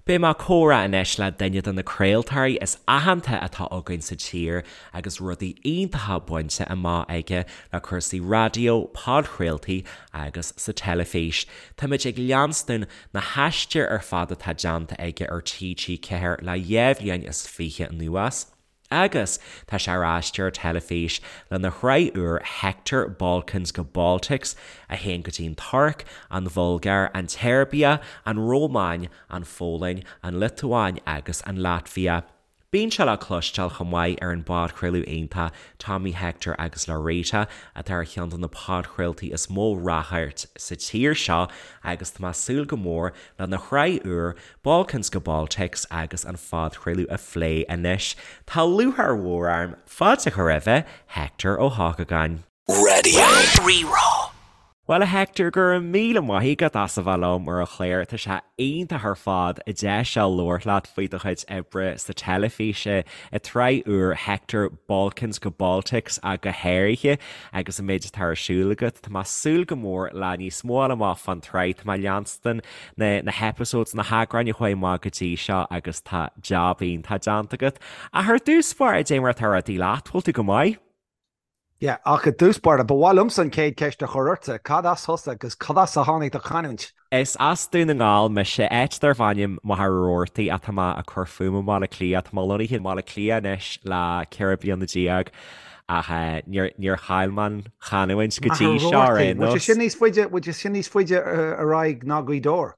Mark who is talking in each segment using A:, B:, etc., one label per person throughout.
A: Beidh mé ag comhrá anois le duine de na craoltóirí is aitheanta atá againn sa tír agus rudaí iontacha bainte amach aige le cúrsaí raidió, podchraoltaí agus sa teilifís. Táimid ag leanstan na haistir ar fad atá déanta aige ar TG4 le 2 bhliain is 20 anuas. Agus tá sé ar aistear teilifís lena shraith úr Hector, Balkans go Baltics, a théann go dtí an Tuirc, an Bhulgáir, an tSeirbia, an Rómáin, an Pholainn, an Liotuáin agus an Laitvia. Bíonn sé le cloisteáil chomh maith ar an bpodchraoladh iontach Tommy Hector agus Laurita, atá ar cheann de na podchraoltaí is mó ráchairt sa tír seo agus tá mé ag súil go mór lena shraith úr Balkans go Baltics agus an phodchraoladh a phlé anois. Tá lúcháir mhór orm fáilte a chur roimhe, Hector Ó hEochagáin.
B: Raidió Rí-Rá.
A: Bhuel a Hector, go raibh míle maith agat as a bheith liom ar an chlár. Tá sé iontach ar fad an deis seo labhairt leat faoi do chuid oibre sa teilifís, i tsraith úr Hector, Balkans go Baltics ach go háirithe agus an méid atá ar siúl agat. Tá mé ag súil go mór le níos mó a fháil amach fán tsraith. Tá mé ag leanstan na na hepisodes, na heagráin a chuaigh amach go dtí seo agus tá jab iontach déanta agat. Ach ar dtús báire, cad é mar atá rudaí leat, bhfuil tú go maith?
C: Yeah, ach i dtús báire, ba mhaith liomsa an chéad cheist a chur ortsa, cad as thusa agus cad as a tháinig do chanúint?
A: Is as Dún na nGall mise, áit darb ainm Machaire Rabhartaigh ach tá mé ag cur fúm i mBaile Átha Cliath. Tá mé lonnaithe i mBaile Átha Cliath anois le 14 bliana ach níor chaill mé an chanúint go dtí seo ar aon
C: nós. Bhfuil sé sin níos faide, bhfuil sé sin níos faide ar aghaidh ná Gaoth Dobhair?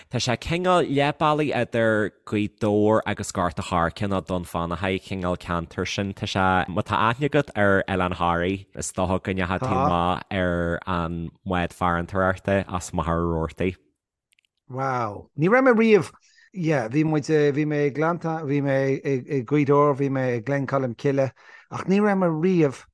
A: Tá sé cineál leath bealaigh idir Gaoth Dobhair agus Gort a' Choirce nó Dún Fionnachaidh, cineál ceantar sin. Tá sé, má tá aithne agat ar Oileán Thoraí, is dócha go ndeachaigh tú amach ar an mbád farantóireachta as Machaire Rabhartaigh.
C: Wow. Ní raibh mé riamh, yeah, bhí muid, bhí mé i nGleannta, bhí mé i Gaoth Dobhair, bhí mé i Gleann Cholm Cille, ach ní raibh mé riamh,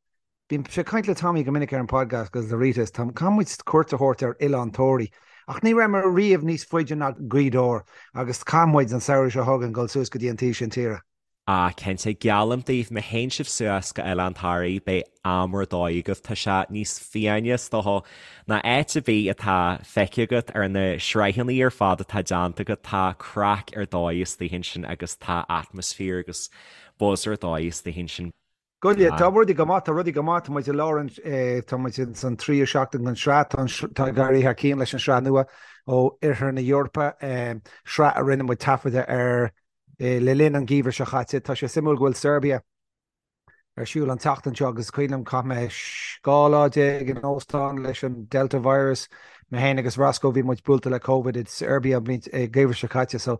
C: bímse ag caint le Tommy go minic ar an podcast agus le Rita, is tá, caithfidh muid cuairt a thabhairt ar Oileán Tóraí, ach ní raibh mé riamh níos faide ná Gaoth Dobhair agus caithfidh muid an samhradh seo chugainn dul suas go dtí an taobh sin tíre.
A: Ah, cinnte, geallaim daoibh, má théann sibh suas go Oileán Thoraí, beidh am ar dóigh agaibh. Tá sé níos fiáine, is dócha, ná áit ar bith atá feicthe agat ar na sraitheanna ar fad atá déanta agat. Tá craic ar dóigh istigh ansin agus tá atmaisféar agus buzz ar dóigh istigh ansin.
C: Go leor, tá rudaí go maith, tá rudaí go maith, tá muid i lár an, tá muid ins an tríú seachtain den sraith, tá an, tá ag éirí thar cionn leis an sraith nua ó Oirthear na hEorpa, sraith a rinne muid taifeadadh ar Le linn an gheimhridh seo chaite, tá sé suimiúil go bhfuil Serbia ar siúl an tseachtain seo agus is cuimhin liom chaith mé 12 lá in óstán leis an Delta virus, mé féin agus Roscoe, bhí muid buailte le Covid i Serbia an bhliain, an geimhreadh seo caite so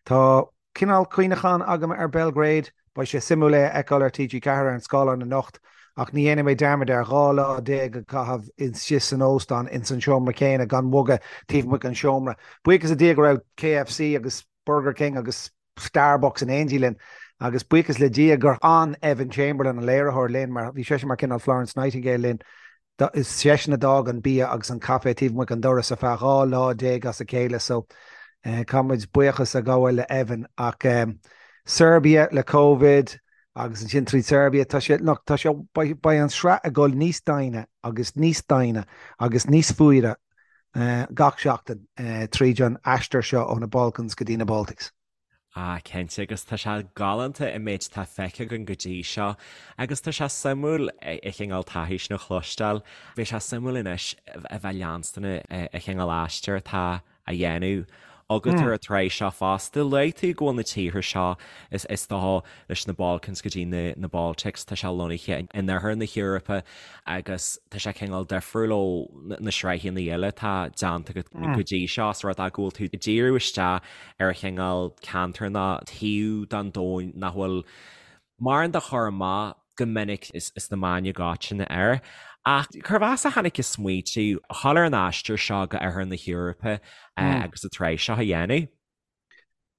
C: tá cineál cuimhneachán agam ar Belgrade. Beidh sé suimiúil é a fheiceáil ar TG4 ar an scáileán anocht ach ní dhéanfaidh mé dearmad ar 12 lá a chaitheamh istigh san óstán ins an seomra céanna gan bogadh taobh amuigh den seomra. Buíochas le Dia go raibh KFC agus Burger King agus Starbucks in éindí linn agus buíochas le Dia gur fhan Evan Chamberlain, an léiritheoir, linn mar bhí seisean mar cineál Florence Nightingale linn. Is seisean a d'fhág an bia agus an caife taobh amuigh den doras ar feadh 12 lá as a chéile so caithfidh muid buíochas a ghabháil le Evan ach Serbia le Covid agus ansin tríd Serbia tá sé, look, tá sé, beidh an sraith ag dul níos doimhne agus níos doimhne agus níos fuaire gach seachtain tríd an aistear seo ó na Balkans go dtí na Baltics.
A: Ah, cinnte, agus tá sé galánta an méid atá feicthe againn go dtí seo agus tá sé suimiúil an chineál taithí sin a chloisteáil. Beidh sé suimiúil anois a bheith leanstan an chineál aistear atá á dhéanamh agat ar an tsraith seo fosta. Luaigh tú go bhfuil na tíortha seo, is dócha, leis na Balkans go dtí na Baltics, tá sé lonnaithe in oirthear na hEorpa agus tá sé cineál difriúil ó na sraitheanna eile atá déanta agat go dtí seo, is rud é go bhfuil tú ag díriú isteach ar chineál ceantar nó taobh den domhan nach bhfuil mórán de chur amach go minic sna meáin i gcoitinne air. Ach cérbh as a tháinig an smaoitiú a dhul ar an aistear seo go oirthear na hEorpa agus an tsraith seo a dhéanamh?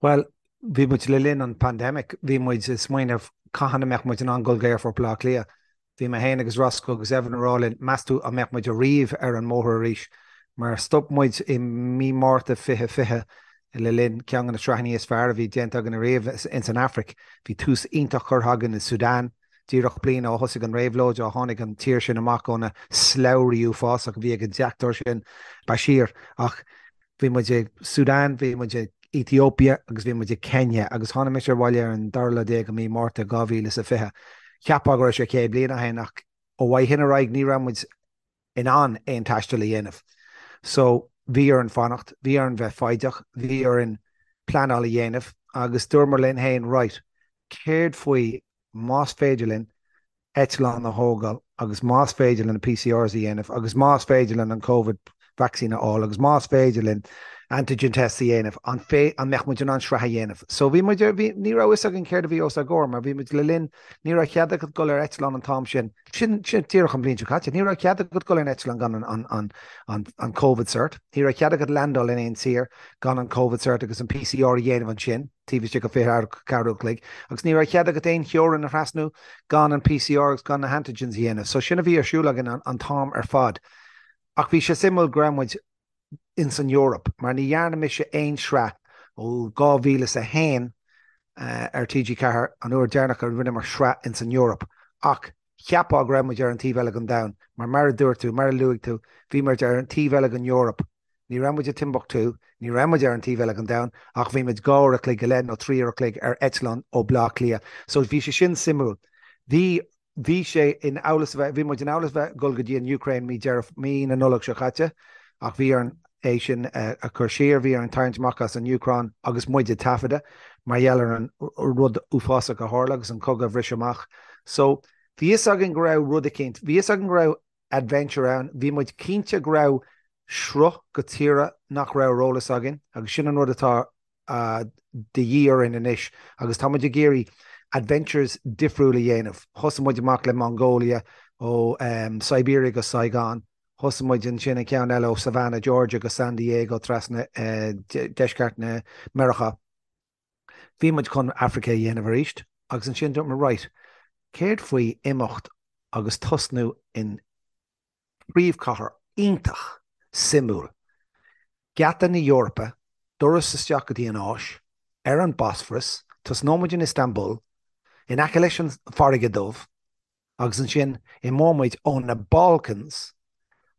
C: Bhuel, bhí muid le linn an pandemic, bhí muid ag smaoineamh cathain a mbeadh muid in ann dul go Aerfort Bhaile Átha Cliath. Bhí mé féin agus Roscoe agus Evan ag rá linn, meas tú an mbeadh muid ariamh ar an mbóthar arís? Mar stop muid i mí Márta 2020 le linn ceann de na sraitheanna is fearr a bhí déanta againn ariamh ins an Afraic. Bhí tús iontach curtha againn i Sudan, díreach bliain ó thosaigh an réabhlóid, ó tháinig an tír sin amach ó na slabhraí uafásach a bhí ag an deachtóir sin, Bashir. Ach bhí muid i Sudan, bhí muid i. Ethiopia agus bhí muid i Kenya agus tháinig mise abhaile ar an dara lá déag de mí Márta 2020. Cheapfá go raibh sé 100 bliain ó shin ach ó shin ar aghaidh ní raibh muid in ann aon taisteal a dhéanamh. So bhí orainn fanacht, bhí orainn bheith foighdeach, bhí orainn pleanáil a dhéanamh agus dúramar linn féin right, céard faoi más féidir linn eitleán a thógáil agus más féidir linn na PCRs a dhéanamh agus más féidir linn an Covid vaccine a fháil agus más féidir linn antigen tests a dhéanamh, an an mbeadh muid in ann sraith a dhéanamh? So bhí muid, bhí, ní raibh fhios againn céard a bhí os ár gcomhair mar bhí muid le linn, ní raibh cead agat dul ar eitleán an t-am sin, sin, sin díreach an bhliain seo caite, ní raibh cead agat dul ar an eitleán gan an, an, an, an, an Covid cert, ní raibh cead agat landáil in aon tír gan an Covid cert agus an PCR a dhéanamh ansin. taobh istigh de 24 uair a chloig, agus ní raibh cead agat aon theorainn a thrasnú gan an PCR agus gan na hantigens a dhéanamh. So sin a bhí ar siúl againn an t-am ar fad. Ach bhí sé suimiúil go raibh muid ins an Eoraip, mar ní dhearna mise aon sraith ó 2001 ar TG4, an uair deireanach a rinneamar sraith ins an Eoraip. Ach cheapfá go raibh muid ar an taobh eile den domhan, mar mar a dúirt tú, mar a luaigh tú, bhí muid ar an taobh eile den Eoraip. Ní raibh muid i Timbuktu, ní raibh muid ar an taobh eile den domhan, ach bhí muid 2 uair a chloig go leith nó 3 uair a chloig ar eitleán ó Bleá Cliath. So bhí sé sin suimiúil. Bhí, bhí sé in amhlas a bheith, bhí muid in amhlas a bheith ag dul go dtí an Ukraine mí Deireadh, mí na Nollag seo caite, ach bhí orainn é sin a chur siar, bhí orainn tarraingt amach as an Úcráin agus muid ag taifeadadh mar gheall ar an rud uafásach a tharla agus an cogadh a bhris amach. So bhí fhios againn go raibh rud eicínt, bhí fhios againn go raibh adventure ann. Bhí muid cinnte go raibh sruth go tíortha nach raibh ar eolas againn agus sin an rud atá de dhíth orainn anois agus tá muid ag iarraidh adventures difriúil a dhéanamh. Thosaigh muid amach le Mongolia ó Siberia go Saigon, thosaigh muid ansin an ceann eile ó Savannah, Georgia go San Diego trasna deisceart na Meiriceá. Bhí muid chun Africa a dhéanamh arís agus ansin dúirt muid right, céard faoi imeacht agus tosnú in príomhchathair iontach suimiúil, geata na hEorpa, doras isteach go dtí an Áis, ar an Bosphorus, tosnóidh muid in Istanbul, in aice leis an Farraige Dubh, agus ansin imeoidh muid ó na Balkans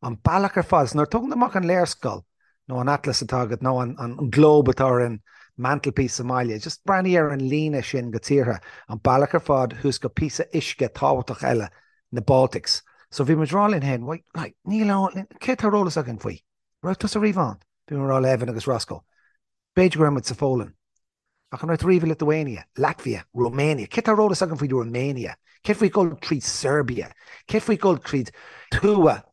C: an bealach ar fad. So nuair a tógann tú amach an léarscáil nó an atlas atá agat nó an globe atá ar an mantelpiece sa mbaile, just breathnaigh ar an líne sin go tíortha, an bealach ar fad thuas go píosa uisce tábhachtach eile, na Baltics. So bhí muid ag rá linn féin, wait, like, níl ann, cé tá ar eolas againn faoi? Raibh tusa riamh ann? Bhí mé ag rá le Evan agus Roscoe. B'fhéidir go raibh muid sa Pholainn. Ach an raibh tú riamh i Lithuania, Latvia, Romania? Cé tá ar eolas againn faoi Romania? Céard faoi dhul tríd Serbia? Céard faoi dhul tríd tuath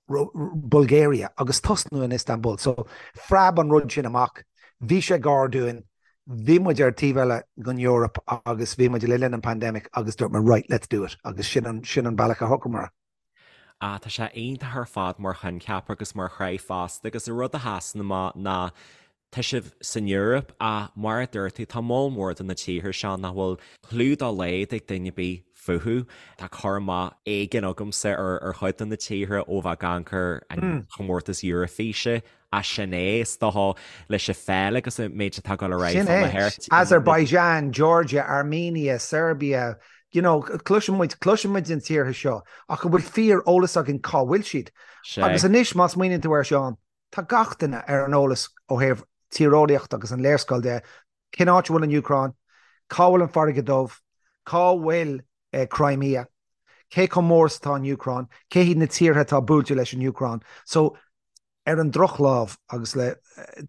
C: Bulgaria agus tosnú in Istanbul? So, phreab an rud sin amach. Bhí sé gar dúinn. Bhí muid ar taobh eile den Eoraip agus bhí muid le linn an pandemic agus dúirt muid right, let's do it agus sin an, sin an bealach a shocraíomar.
A: Ah, tá sé iontach ar fad mar choincheap agus mar shraith fosta agus an rud a sheasann amach ná tá sibh san Eoraip ach mar a dúirt tú tá moll mór de na tíortha seo nach bhfuil clue dá laghad ag duine ar bith fúthu. Tá cur amach éigin agamsa ar ar chuid de na tíortha ó bheith ag amharc ar an chomórtas Eoraifíse ach sin é, is dócha, leis an pheil agus an méid atá ag dul ar aghaidh
C: Sin é. Azerbaijan, Georgia, Armenia, Serbia, you know, cloiseann muid, cloiseann muid na tíortha seo ach an bhfuil fíor eolas againn cá bhfuil siad? Agus anois má smaoiníonn tú air Seán, tá gach duine ar an eolas ó thaobh tíreolaíocht agus an léarscáil de, cén áit a bhfuil an Úcráin, cá bhfuil an Farraige Dubh, cá bhfuil Crimea, cé chomh mór is atá an Úcráin, cé hiad na tíortha atá buailte leis an Úcráin. So Ar an drochlámh, agus le,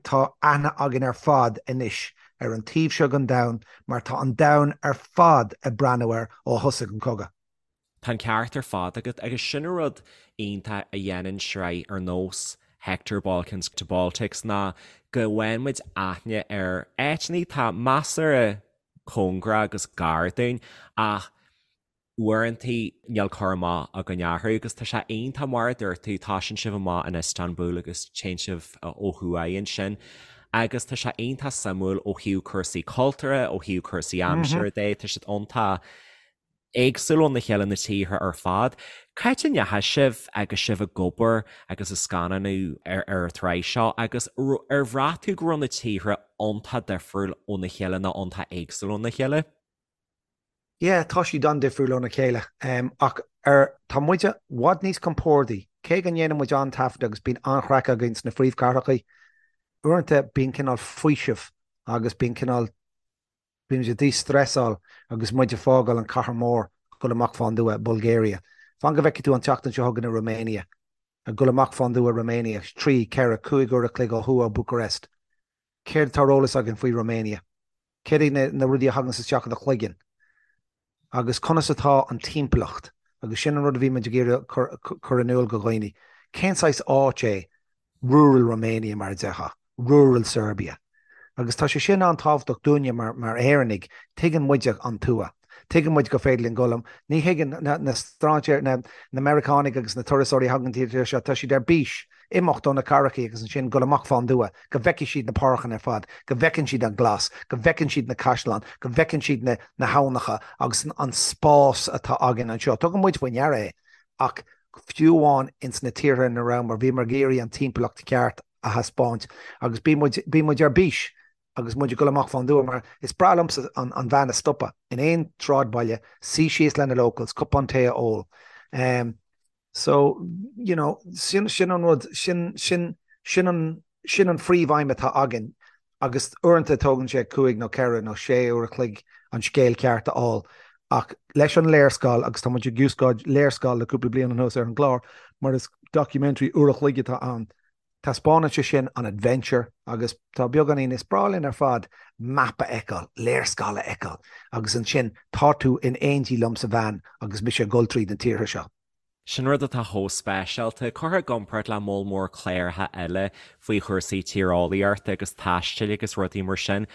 C: tá aithne againn ar fad anois ar an taobh seo den domhan mar tá an domhan ar fad ag breathnú air ó thosaigh an cogadh.
A: Tá an ceart ar fad agat agus sin an rud iontach a dhéanann sraith ar nós Hector Balkans to Baltics ná go bhfaigheann muid aithne ar áiteanna atá measartha cóngarach agus gar dúinn ach uaireanta níl cur amach againn orthu agus tá sé iontach mar a dúirt tú, tosaíonn sibh amach in Istanbul agus téann sibh ó thuaidh ansin agus tá sé iontach suimiúil ó thaobh cúrsaí cultúrtha, ó thaobh cúrsaí aimsire de, tá siad iontach éagsúil óna chéile na tíortha ar fad. Cá háit a ndeachaigh sibh agus sibh ag obair agus ag scannánú ar ar an tsraith seo agus ar bhraith tú go raibh na tíortha iontach difriúil óna chéile nó iontach éagsúil óna chéile?
C: Yeah, tá siad an-difriúil óna chéile. Ach ar, tá muid i bhfad níos compordaí. Cé go ndéanann muid an-taifead agus bíonn an-chraic againn sna phríomhchathracha, uaireanta bíonn cineál faoiseamh. agus bíonn cineál, bíonn muid ag dí-stressáil agus muid ag fágáil an cathair mór ag dul amach fán dtuath, Bulgaria. Fan go bhfeicfidh tú an tseachtain seo chugainn i Romania, ag dul amach fán dtuath Romania, 3, 4, 5 uair a chloig ó thuaidh ó Bucharest. Céard atá ar eolas againn faoi Romania? Céard iad na rudaí a thaganns isteach i do chloigeann? Agus conas atá an timpeallacht? Agus sin an rud a bhí muid ag iarraidh cur in iúl go dhaoine. Cén saghas áit é rural Romania mar a déarfá, rural Serbia? Agus tá sé sin an-tábhachtach dúinne mar mar Éireannaigh, tuigeann muide an tuath. Tuigeann muid gur féidir linn dul, ní thuigeann na strainséir, na Meiriceánaigh agus na turasóirí a thagann go dtí an tír seo, tá siad ar bís imeacht ó na cathrachaí agus ansin dul amach fán dtuath, go bhfeicfidh siad na páirceanna ar fad, go bhfeiceann siad an glas, go bhfeiceann siad na caisleáin, go bhfeiceann siad na na habhnacha agus an spás atá againn anseo. Tugann muid faoi ndeara é ach fiú amháin ins na tíortha ina rabhamar, bhíomar ag iarraidh an timpeallacht cheart a thaispeáint agus bíonn muid, bíonn muid ar bís agus muid ag dul amach fán dtuath mar is breá liomsa an an veain a stopadh in aon sráidbhaile, suí síos le na locals, cupán tae a ól. Um, So, you know, sin, sin an rud, sin, sin, sin an, sin an phríomhaidhm atá againn agus uaireanta tógann sé cúig nó ceithre nó sé uair a chloig an scéal ceart a fháil ach leis an léarscáil, agus tá muid ag úsáid léarscáil le cúpla bliain anuas ar an gclár mar is documentary uair a chloig atá ann, taispeánann sé sin an adventure agus tá beagáinín, is breá linn ar fad map a fheiceáil, léarscáil a fheiceáil agus ansin tá tú in éindí liom sa veain agus mise ag dul tríd na tíortha seo.
A: Sin rud atá chomh speisialta, curtha i gcomparáid le moll mór cláracha eile faoi chúrsaí tíreolaíochta agus taistil agus rudaí mar sin.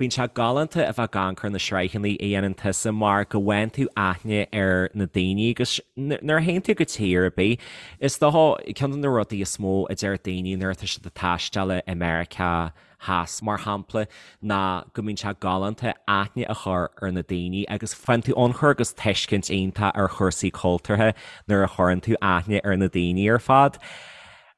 A: Bíonn sé galánta a bheith ag amharc ar na sraitheanna a dhéanann tusa mar go bhfaigheann tú aithne ar na daoine agus nuair a théann tú go tír ar bith, is dócha, ceann de na rudaí is mó a deir daoine nuair atá siad ag taisteal i Meiriceá Theas, mar shampla, ná go mbíonn sé galánta aithne a chur ar na daoine agus faigheann tú ionchur agus tuiscint iontach ar chúrsaí cultúrtha nuair a chuireann tú aithne ar na daoine ar fad.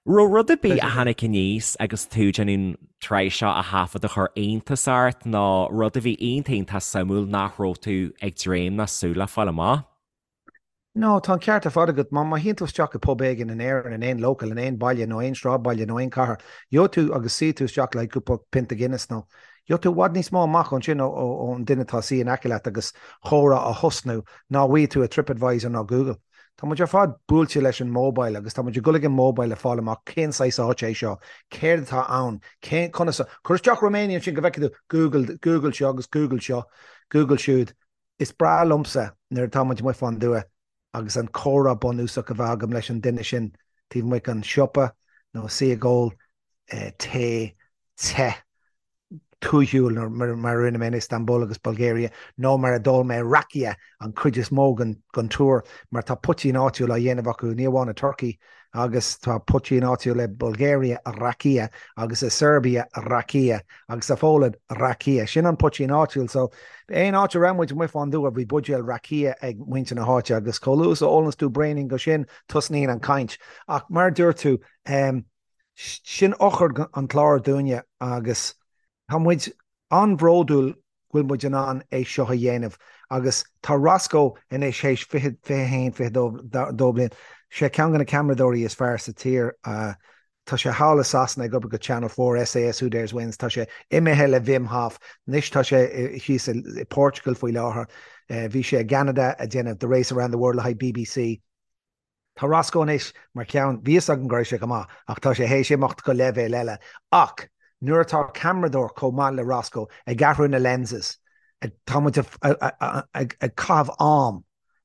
A: Raibh rud ar bith a tháinig aníos agus tú ag déanamh an tsraith seo a thaifead a chuir iontas ort nó rud a bhí iontach iontach suimiúil nach raibh tú ag dréim ná súil le fáil amach?
C: No, tá an ceart ar fad agat. Má má théann tú isteach i pub éigin in Éirinn, in aon local, in aon baile nó aon sráidbhaile nó aon chathair, gheobhaidh tú agus suífidh tú isteach le cúpla pionta Guinness nó gheobhaidh tú i bhfad níos mó amach ansin ó ón duine atá suí in aice leat agus chomhrá a thosnú ná a bhfaighidh tú i TripAdvisor nó Google. Tá muid ar fad buailte leis an mobile agus tá muid ag dul ag an mobile le fáil amach cén saghas áit é seo, céard atá ann, cén, conas a, cuir isteach Romania ansin go bhfeicfidh tú Google, Google seo agus Google seo, Google siúd. Is breá liomsa nuair atá muid amuigh fán dtuath agus an comhrá bunúsach a bheith agam leis an duine sin taobh amuigh den siopa nó suí ag ól tae te tuaithiúil mar a rinne mé in Istanbul agus Bulgaria nó mar a d'ól mé rakia an chuid is mó den tour mar tá poitín áitiúil á dhéanamh acu ní amháin i Turkey agus tá poitín áitiúil i Bulgaria, rakia, agus i Serbia, rakia, agus sa Pholainn, rakia. Sin an poitín áitiúil. So, aon áit a raibh muid amuigh fán dtuath, bhí buidéal rakia ag muintir na háite agus chomh luath is a ólanns tú braoinín de sin, tosnaíonn an chaint. Ach mar a dúirt tú, sin eochair an chláir dúinne agus tá muid an-bhródúil go bhfuil muid in ann é seo a dhéanamh agus tá Roscoe anois théis 20, 21, 22 bliain, sé ceann de na ceamaradóirí is fearr sa tír. Tá sé thall i Sasana ag obair go Channel 4, SAS Who Dares Wins, tá sé imithe le Wim Hof, anois tá sé thíos i Portugal faoi láthair. Bhí sé i gCeanada ag déanamh The Race Around the World le haghaidh BBC. Tá Roscoe anois mar cheann, bhí fhios agam go raibh sé go maith ach tá sé théis imeacht go leibhéal eile. Ach nuair atá ceamaradóir chomh maith le Roscoe ag athrú na lenses, tá muid ag caitheamh am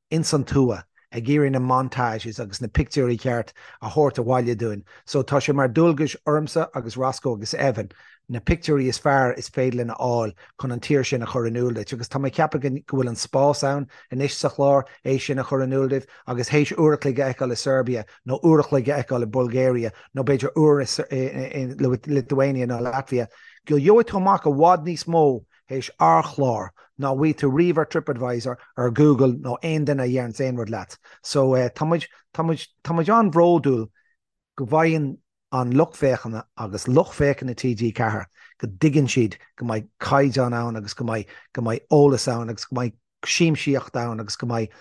C: ins an tuath ag iarraidh na montages agus na pictiúirí ceart a thabhairt abhaile dúinn. So tá sé mar dualgais ormsa agus Roscoe agus Evan na pictiúirí is fearr is féidir linn a fháil chun an tír sin a chur in iúl duit agus tá mé ag ceapadh go bhfuil an spás ann anois sa chlár é sin a chur in iúl duit agus théis uair a chloig a fheiceáil i Serbia nó uair a chloig a fheiceáil i Bulgaria nó b'fhéidir uair i Lithuania nó Latvia go gheobhaidh tú amach i bhfad níos mó théis ár chlár ná bhfaighidh tú riamh ar TripAdvisor, ar Google nó aon duine a deireanns aon rud leat. So tá muid, tá muid, tá muid an-bhródúil go bhfaigheann an lucht féachana agus lucht féachana TG4 go dtuigeann siad go mbeidh caighdeán ann agus go mbeidh, go mbeidh eolas ann agus go mbeidh siamsaíocht ann agus go mbeidh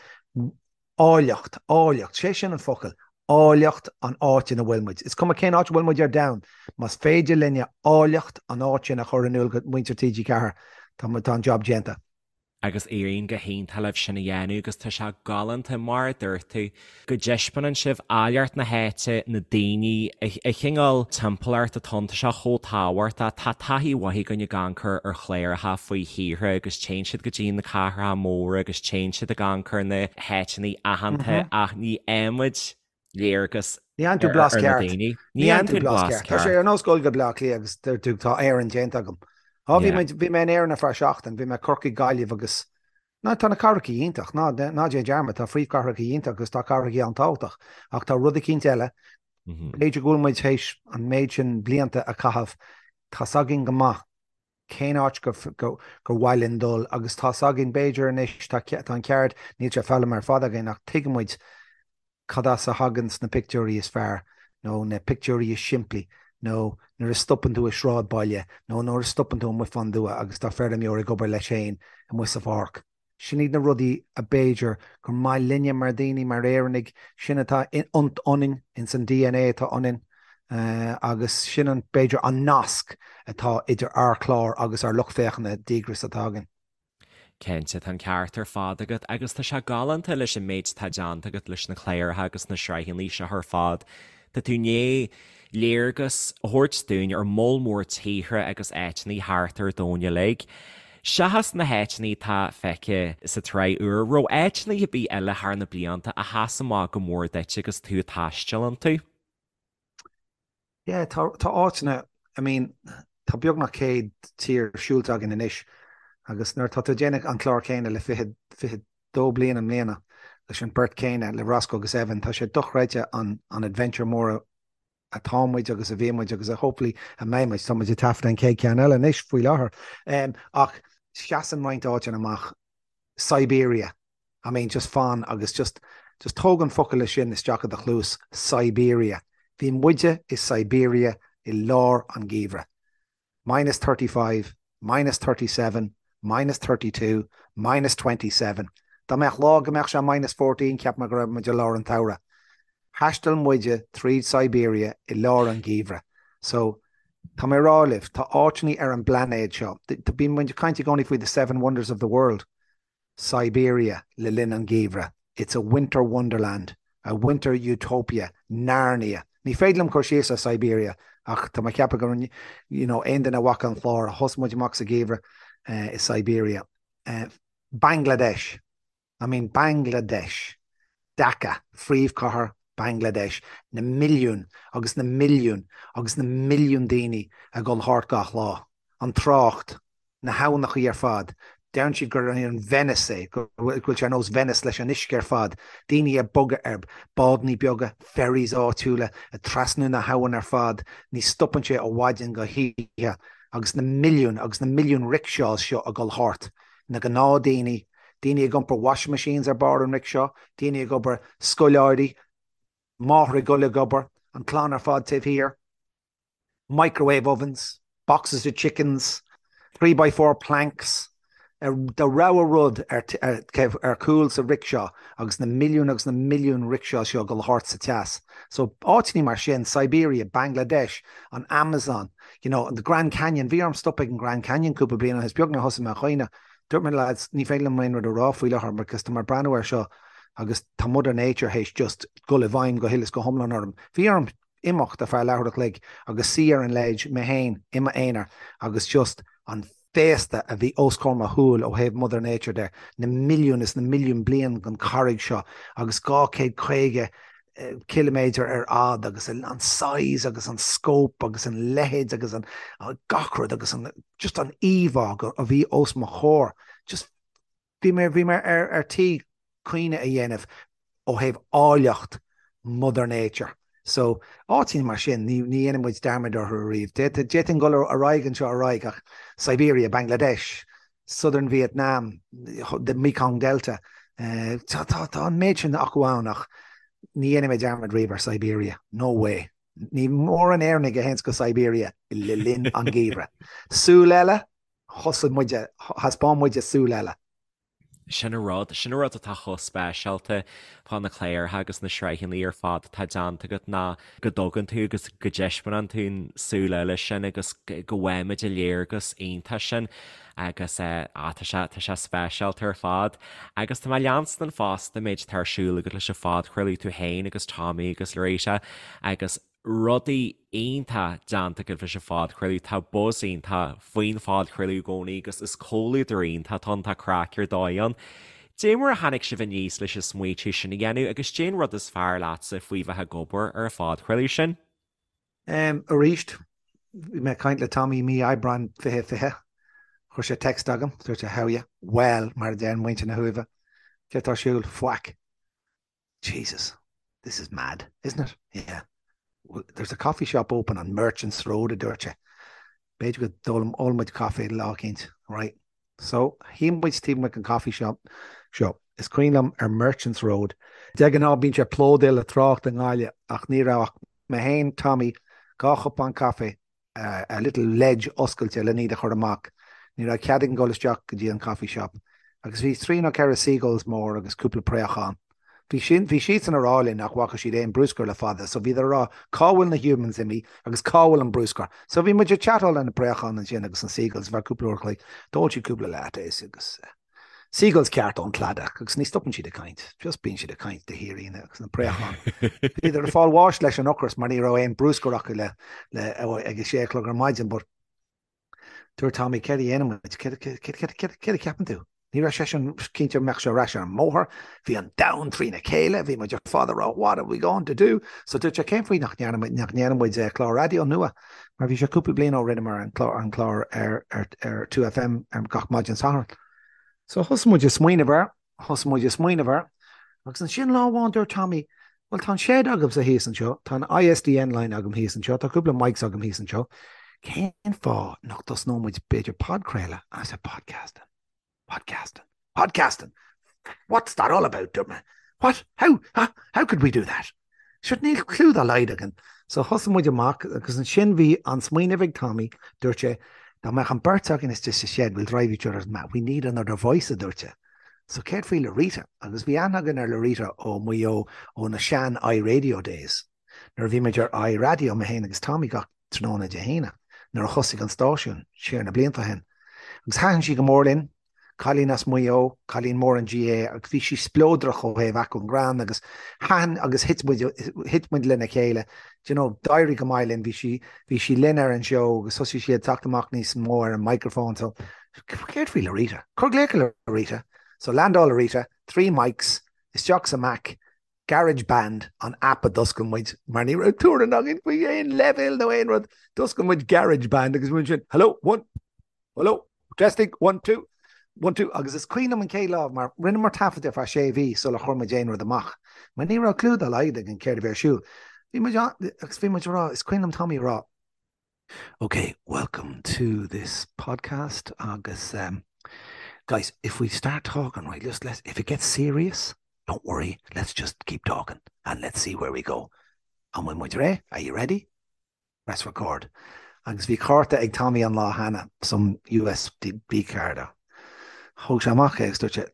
C: áilleacht, áilleacht, sé sin an focal, Áilleacht an áit ina bhfuil muid. Is cuma cén áit a bhfuil muid ar domhan, más féidir linne áilleacht an áit sin a chur in iúl go muintir TG4, tá an job déanta.
A: Agus éiríonn go hiontach libh sin a dhéanamh agus tá sé galánta, mar a dúirt tú, go dtaispeánann sibh áilleacht na háite, na daoine, an cineál timpeallacht atá ann, tá sé chomh tábhachtach. Tá taithí mhaith againn ag amharc ar chláracha faoi thíortha agus téann siad go dtí na cathracha móra agus téann siad ag amharc ar na háiteanna aitheanta ach ní fhaighimid léargas
C: Ní fhaigheann tú blas ceart. Ní fhaigheann tú blas ceart. Tá sé ar nós dul go Bleá Cliath agus deir tú tá Éirinn déanta agam. Á bhí mé bhí mé in Éirinn ar feadh seachtain, bhí mé Corcaigh, Gaillimh agus Ná tá na cathracha iontach, ná ná déan dearmad, tá phríomhchathracha iontach agus tá cathracha an-tábhachtach ach tá rud eicínt eile, b'fhéidir go bhfuil muid théis an méid sin blianta a chaitheamh, tá's againn go maith cén áit gur gur mhaith linn dul agus tá's againn b'fhéidir anois tá tá an ceard, níl sé foghlamtha ar fad againn ach tuigeann muid cad as a thaganns na pictiúirí is fearr nó na pictiúirí is simplí nó nuair a stopann tú i sráidbhaile nó nuair a stopann tú amuigh fán dtuath agus tá feirmeoir ag obair leis féin amuigh sa pháirc. Sin iad na rudaí a b'fhéidir gur maith linne mar daoine, mar Éireannaigh, sin atá ionainn, ins an DNA atá ionainn agus sin an, b'fhéidir, an nasc atá idir ár chlár agus ár lucht féachana díograis atá againn.
A: Cinnte, tá an ceart ar fad agat agus tá sé galánta leis an méid atá déanta agat leis na cláracha agus na sraitheanna seo ar fad. Tá tú i ndiaidh léargas a thabhairt dúinn ar moll mór tíortha agus áiteanna thart ar domhan uilig. Seachas na háiteanna atá feicthe sa tsraith úr, raibh áiteanna ar bith eile thar na blianta a sheas amach go mór duit agus tú ag taisteal iontu?
C: Yeah, tá, tá áiteanna, I mean, tá beagnach 100 tír siúlta againn anois agus nuair atá tú ag déanamh an clár céanna le 20, 22 bliain i mbliana leis an beirt céanna, le Roscoe agus Evan, tá sé dochreidte an, an adventure mór atá muid agus a bhí muid agus a hopefully a mbeidh muid. Tá muid ag taifeadadh an chéad ceann eile anois faoi láthair. Um, ach seasann roinnt áiteanna amach Siberia, I mean just fan agus just just tóg an focal sin isteach i do chluas, Siberia. Bhí muide i Siberia i lár an gheimhridh. Minus 35, minus 37, minus 32, minus 27. Dá mbeadh lá go mbeadh sé minus 14 cheap mé go raibh muid i lár an tsamhraidh. Thaistil muide tríd Siberia i lár an gheimhridh. So, tá mé ag rá libh, tá áiteanna ar an bplainéad seo, bíonn muid ag caint i gcónaí faoi the seven wonders of the world. Siberia le linn an gheimhridh, it's a winter wonderland, a winter utopia, Narnia. Ní féidir liom cur síos ar Siberia ach tá mé ag ceapadh go you know aon duine a bhfaca an clár, thosaigh muid amach sa gheimhreadh i Siberia. Bangladesh, I mean Bangladesh, Dhaka, phríomhchathair Bangladesh, na milliúin agus na milliúin agus na milliúin daoine ag dul thart gach lá. An trácht, na habhnachaí ar fad, deireann siad gur an Venice é, go bhfuil sé ar nós Venice leis an uisce ar fad, daoine ag bogadh ar bádannaí beaga, ferries áitiúla, ag trasnú na habhann ar fad, ní stopann sé ó mhaidin go hoíche agus na milliúin agus na milliúin rickshaws seo ag dul thart, na gnáthdaoine, daoine ag iompar washing machines ar barr an rickshaw, daoine ag obair, scoláirí, máthair ag dul ag obair, an clann ar fad taobh thiar, microwave ovens, boxes of chickens, 3 by 4 planks, do rogha rud ar chúl sa rickshaw agus na milliúin agus na milliúin rickshaw seo ag dul thart sa teas. So áiteanna mar sin, Siberia, Bangladesh, an Amazon, you know, the Grand Canyon, bhí orm stop ag an Grand Canyon cúpla bliain ó shin, is beag nár thosaigh mé a chaoineadh. Dúirt mé lads, ní féidir liom aon rud a rá faoi láthair because tá mé ag breathnú air seo agus tá Mother Nature théis just dul i bhfeidhm go huile is go hiomlán orm. Bhí orm imeacht ar feadh leathuair a chloig agus suí ar an ledge mé féin i m'aonar agus just an féasta a bhí os comhair mo shúil ó thaobh Mother Nature de, na milliúin is na milliúin bliain den charraig seo agus 250 ciliméadar ar fhad agus an size agus an scope agus an leithead agus an gach rud agus an just an íomhá a bhí os mo chomhair. Just bhí mé bhí mé ar ar tí caoineadh a dhéanamh ó thaobh áilleacht Mother Nature. So áiteanna mar sin ní ní dhéanann muid dearmad orthu ariamh. D'fhéadfainn dul ar aghaidh anseo ar aghaidh ach Siberia, Bangladesh, Southern Vietnam, the Mekong Delta. Tá tá tá an méid sin acu ann ach ní dhéanfaidh mé dearmad riamh ar Siberia. No way. Ní mórán Éireannaigh a théanns go Siberia le linn an gheimhridh. Súil eile, thosaigh muide, thaispeáin muide súil eile.
A: Sin an rud, sin an rud atá chomh speisialta fá na cláracha agus na sraitheanna ar fad atá déanta agat ná go dtugann tú agus go dtaispeánann tú an súil eile sin agus go bhfaighimid an léargas iontach sin agus eh tá sé, tá sé speisialta ar fad. Agus tá mé ag leanstan fosta an méid atá ar siúl agat leis an phodchraoladh tú féin agus Tommy agus Loretta agus rudaí iontach déanta agaibh leis an phodchraoladh. Tá buzz iontach faoin phodchraoladh i gcónaí agus is comhluadar iontach atá ann, tá craic ar dóigh ann. Dé mar a tháinig sibh aníos leis an smaoitiú sin a dhéanamh agus dén rud is fearr leatsa faoi bheith ag obair ar an phodchraoladh sin?
C: Arís, bhí mé ag caint le Tommy mí Aibreáin 2020. Chuir sé text agam, dúirt sé how ya? Well, mar a deireann muintir na hUaimhe. Céard tá ar siúl? Faic. Jesus, this is mad, isn't it? Yeah. Well, there's a coffee shop open on Merchants Road, a dúirt sé. B'fhéidir go n-ólfaidh muid caife lá eicínt, right? So, shuigh muid taobh amuigh den coffee shop seo. Is cuimhin liom ar Merchants Road. De ghnáth bíonn sé plódaithe le trácht i nGaillimh ach ní raibh ach mé féin, Tommy, 2 chupán caife a little ledge oscailte len iad a chur amach. Ní raibh cead againn dul isteach go dtí an coffee shop. Agus bhí trí nó ceithre seagulls mór agus cúpla préachán. Bhí sin, bhí siadsan a rá linn nach bhfaca siad aon bruscar le fada so bhíodar a rá cá bhfuil na humans imithe agus cá bhfuil an bruscar. So bhí muid ag chatáil le na préacháin ansin agus na seagulls ar feadh cúpla uair a chloig. D'ól siad cúpla lattes agus eh. Seagulls ceart ón cladach agus ní stopann siad ag caint, just bíonn siad ag caint de shíor agus na préacháin. Bhíodar ag fáil bháis leis an ocras mar ní raibh aon bruscar acu le le ag a sé a chlog ar maidin but dúirt Tommy céard a dhéanann muid, céard a cheapann tú? Ní raibh seisean cinnte an mbeadh sé ar ais ar an mbóthar, bhí an domhan trína chéile, bhí muid ar fad ag rá what are we going to do? So dúirt sé cén faoi nach ndéanann muid clár raidió nua? Mar bhí sé cúpla bliain ó rinneamar an clár an clár ar ar ar 2FM ar gach maidin Sathairn. So thosaigh muid ag smaoineamh air, thosaigh muid ag smaoineamh air, agus ansin lá amháin dúirt Tommy, bhuel tá an shed agamsa thíos anseo, tá an ISDN line agam thíos anseo, tá cúpla mics agam thíos anseo, cén fáth nach dtosnódh muid b'fhéidir podchraoladh? And I said podcasting, podcasting, podcasting! What's that all about? Dúirt mé. What? How? How, how could we do that? Sure, níl clue dá laghad againn. So thosaigh muid amach agus ansin bhí an smaoineamh ag Tommy, dúirt sé, dá mbeadh an beirt againn istigh sa shed, we'll drive each other mad, we need another voice, a dúirt sé. So céard faoi Lorita? Agus bhí aithne againn ar Lorita ó Mhaigh Eo ó na sean iRadio days. Nuair a bhí muid ar iRadio, mé féin agus Tommy gach tráthnóna Dé hAoine, nuair a thosaigh an stáisiún, siar na blianta ó shin. Agus thaitin sí go mór linn, cailín as Maigh Eo, cailín mór an GAA agus bhí sí spleodrach ó thaobh acmhainn greann agus thaitin agus thit muid, thit muid lena chéile. Do you know, d'éirigh go maith linn, bhí sí, bhí sí linn ar an seó agus thosaigh sí ag teacht amach níos mó ar an microphone so céard faoi Lorita? Cuir glaoch ar Lorita. So landáil Lorita, 3 mics, isteach sa Mac, Garage Band an app a d'oscail muid mar ní raibh tuairim againn faoi aon leibhéal nó aon rud. D'oscail muid Garage Band agus muid sin, hello, one, hello, testing, one, two, one, two, agus is cuimhin liom an chéad lá mar rinneamar taifead ar feadh sé mhí sular chuir muid aon rud amach mar ní raibh clue dá laghad againn céard a bhí ar siúl. Bhí muid agus bhí muid ag rá, is cuimhin liom Tommy ag rá, Ok, welcome to this podcast agus um, guys, if we start talking, right, just let's, if it gets serious, don't worry, let's just keep talking and let's see where we go. An bhfuil muid réidh? Are you ready? Press record. Agus bhí cárta ag Tommy an lá cheana, some USB card. Thóg sé amach é agus dúirt sé,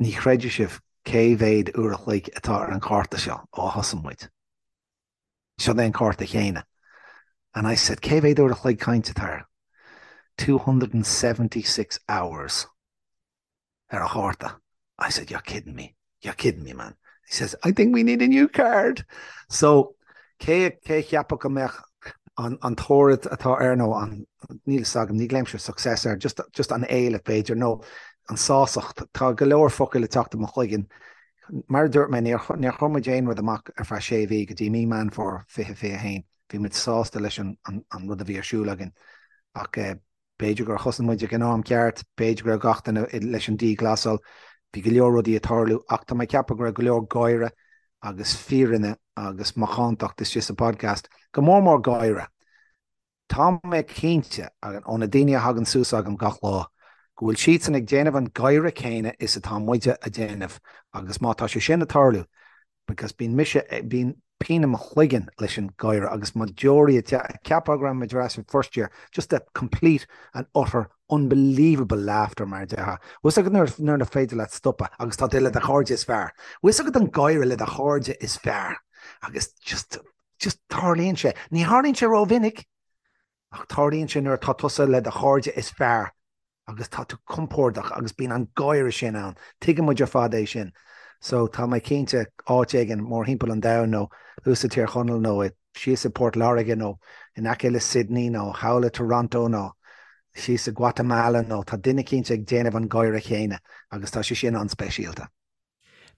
C: ní chreidfidh sibh cé mhéad uair a chloig atá ar an chárta seo ó thosaigh muid. Seo é an cárta chéanna. And I said, cé mhéad uair a chloig cainte atá air? 276 hours ar an chárta. I said, you're kidding me. You're kidding me, man. He says, I think we need a new card. So, cé cé cheapfadh go mbeadh an, an toradh atá air nó an, níl fhios agam, ní ghlaoimse success air, just, just an éileamh b'fhéidir, nó an sásacht. Tá go leor focail ag teacht i mo chloigeann. Mar a dúirt mé, níor chuir muid aon rud amach ar feadh sé mhí go dtí mí Meán Fómhair 2021. Bhí muid sásta leis an rud a bhí ar siúl againn. Ach b'fhéidir gur thosaigh muid ag an am ceart, b'fhéidir go raibh gach duine leis an dianghlasáil, bhí go leor rudaí ag tarlú ach tá mé ag ceapadh go raibh go leor gáire agus fírinne agus macántacht istigh sa podcast, go mór mór gáire. Tá mé cinnte, ó na daoine a thagann suas agam gach lá, go bhfuil siadsan ag déanamh an gáire céanna is atá muide a déanamh agus má tá sé sin ag tarlú, because bíonn mise, bíonn pian i mo chloigeann leis an gáire agus mo deoraí ag ceapadh go raibh muid ar ais in first year, just a complete and utter. Unbelievable laughter mar a déarfá. Bhfuil fhios agat nuair nuair nach féidir leat stopadh agus tá tú le do chairde is fearr. Bhfuil fhios agat an gáire le do chairde is fearr agus just just tarlaíonn sé. Ní tharlaíonn sé rómhinic ach tarlaíonn sé nuair atá tusa le do chairde is fearr agus tá tú compordach agus bíonn an gáire sin ann. Tuigeann muid ar fad é sin. So tá mé cinnte áit éigin mórthimpeall an domhain nó thuas i Tír Chonaill nó i síos i Port Láirge nó in aice le Sydney nó thall i Toronto nó síos i Guatemala nó tá duine cinnte ag déanamh an gáire chéanna agus tá sé sin an-speisialta.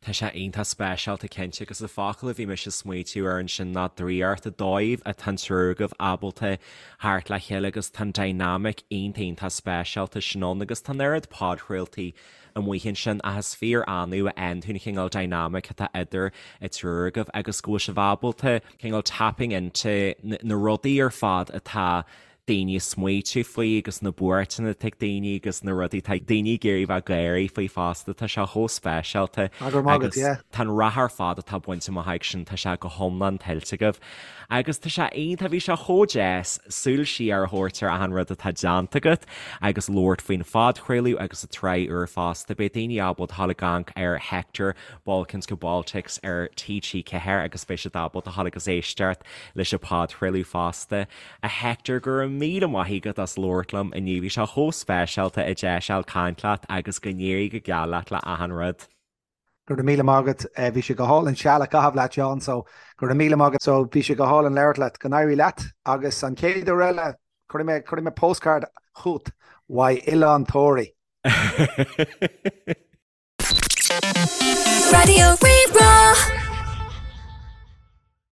A: Tá sé iontach speisialta cinnte agus an focal a bhí mise ag smaoitiú air ansin ná draíocht, an dóigh atá an triúr agaibh ábalta theacht le chéile agus tá an dynamic iontach iontach speisialta sin ann agus tá an oiread podchraoltaí amuigh ansin ach is fíor annamh a fhaigheann tú an chineál dynamic atá idir an triúr agaibh agus go bhfuil sibh ábalta cineál tapping into na rudaí ar fad atá daoine ag smaoitiú faoi agus na buairteanna atá ag daoine agus na rudaí atá daoine ag iarraidh bheith ag gáirí faoi fosta, tá sé chomh speisialta agus tá an rath ar fad atá bainte amach agaibh sin, tá sé go hiomlán tuillte agaibh. Agus tá sé iontach, bhí sé chomh deas súil siar a thabhairt ar achan rud atá déanta agat agus labhairt faoin phodchraoladh agus an tsraith úr fosta. Beidh daoine ábalta a dhul ag amharc ar Hector, Balkans go Baltics ar TG4 agus beidh siad ábalta a dhul agus éisteacht leis an podchraoladh fosta. A Hector, go raibh míle maith agat as labhairt liom inniu, bhí sé chomh speisialta an deis a fháil caint leat agus go n-éirí go geal leat le achan rud.
C: Go raibh míle maith agat. Bhí sé go hálainn seal a chaitheamh leat, Seán, so go raibh míle maith agat. So bhí sé go hálainn labhairt leat. Go n-éirí leat agus an chéad uair eile cuirfidh mé, cuirfidh mé postcard chugat uaidh Oileán Thoraí.
B: Raidió Rí-Rá.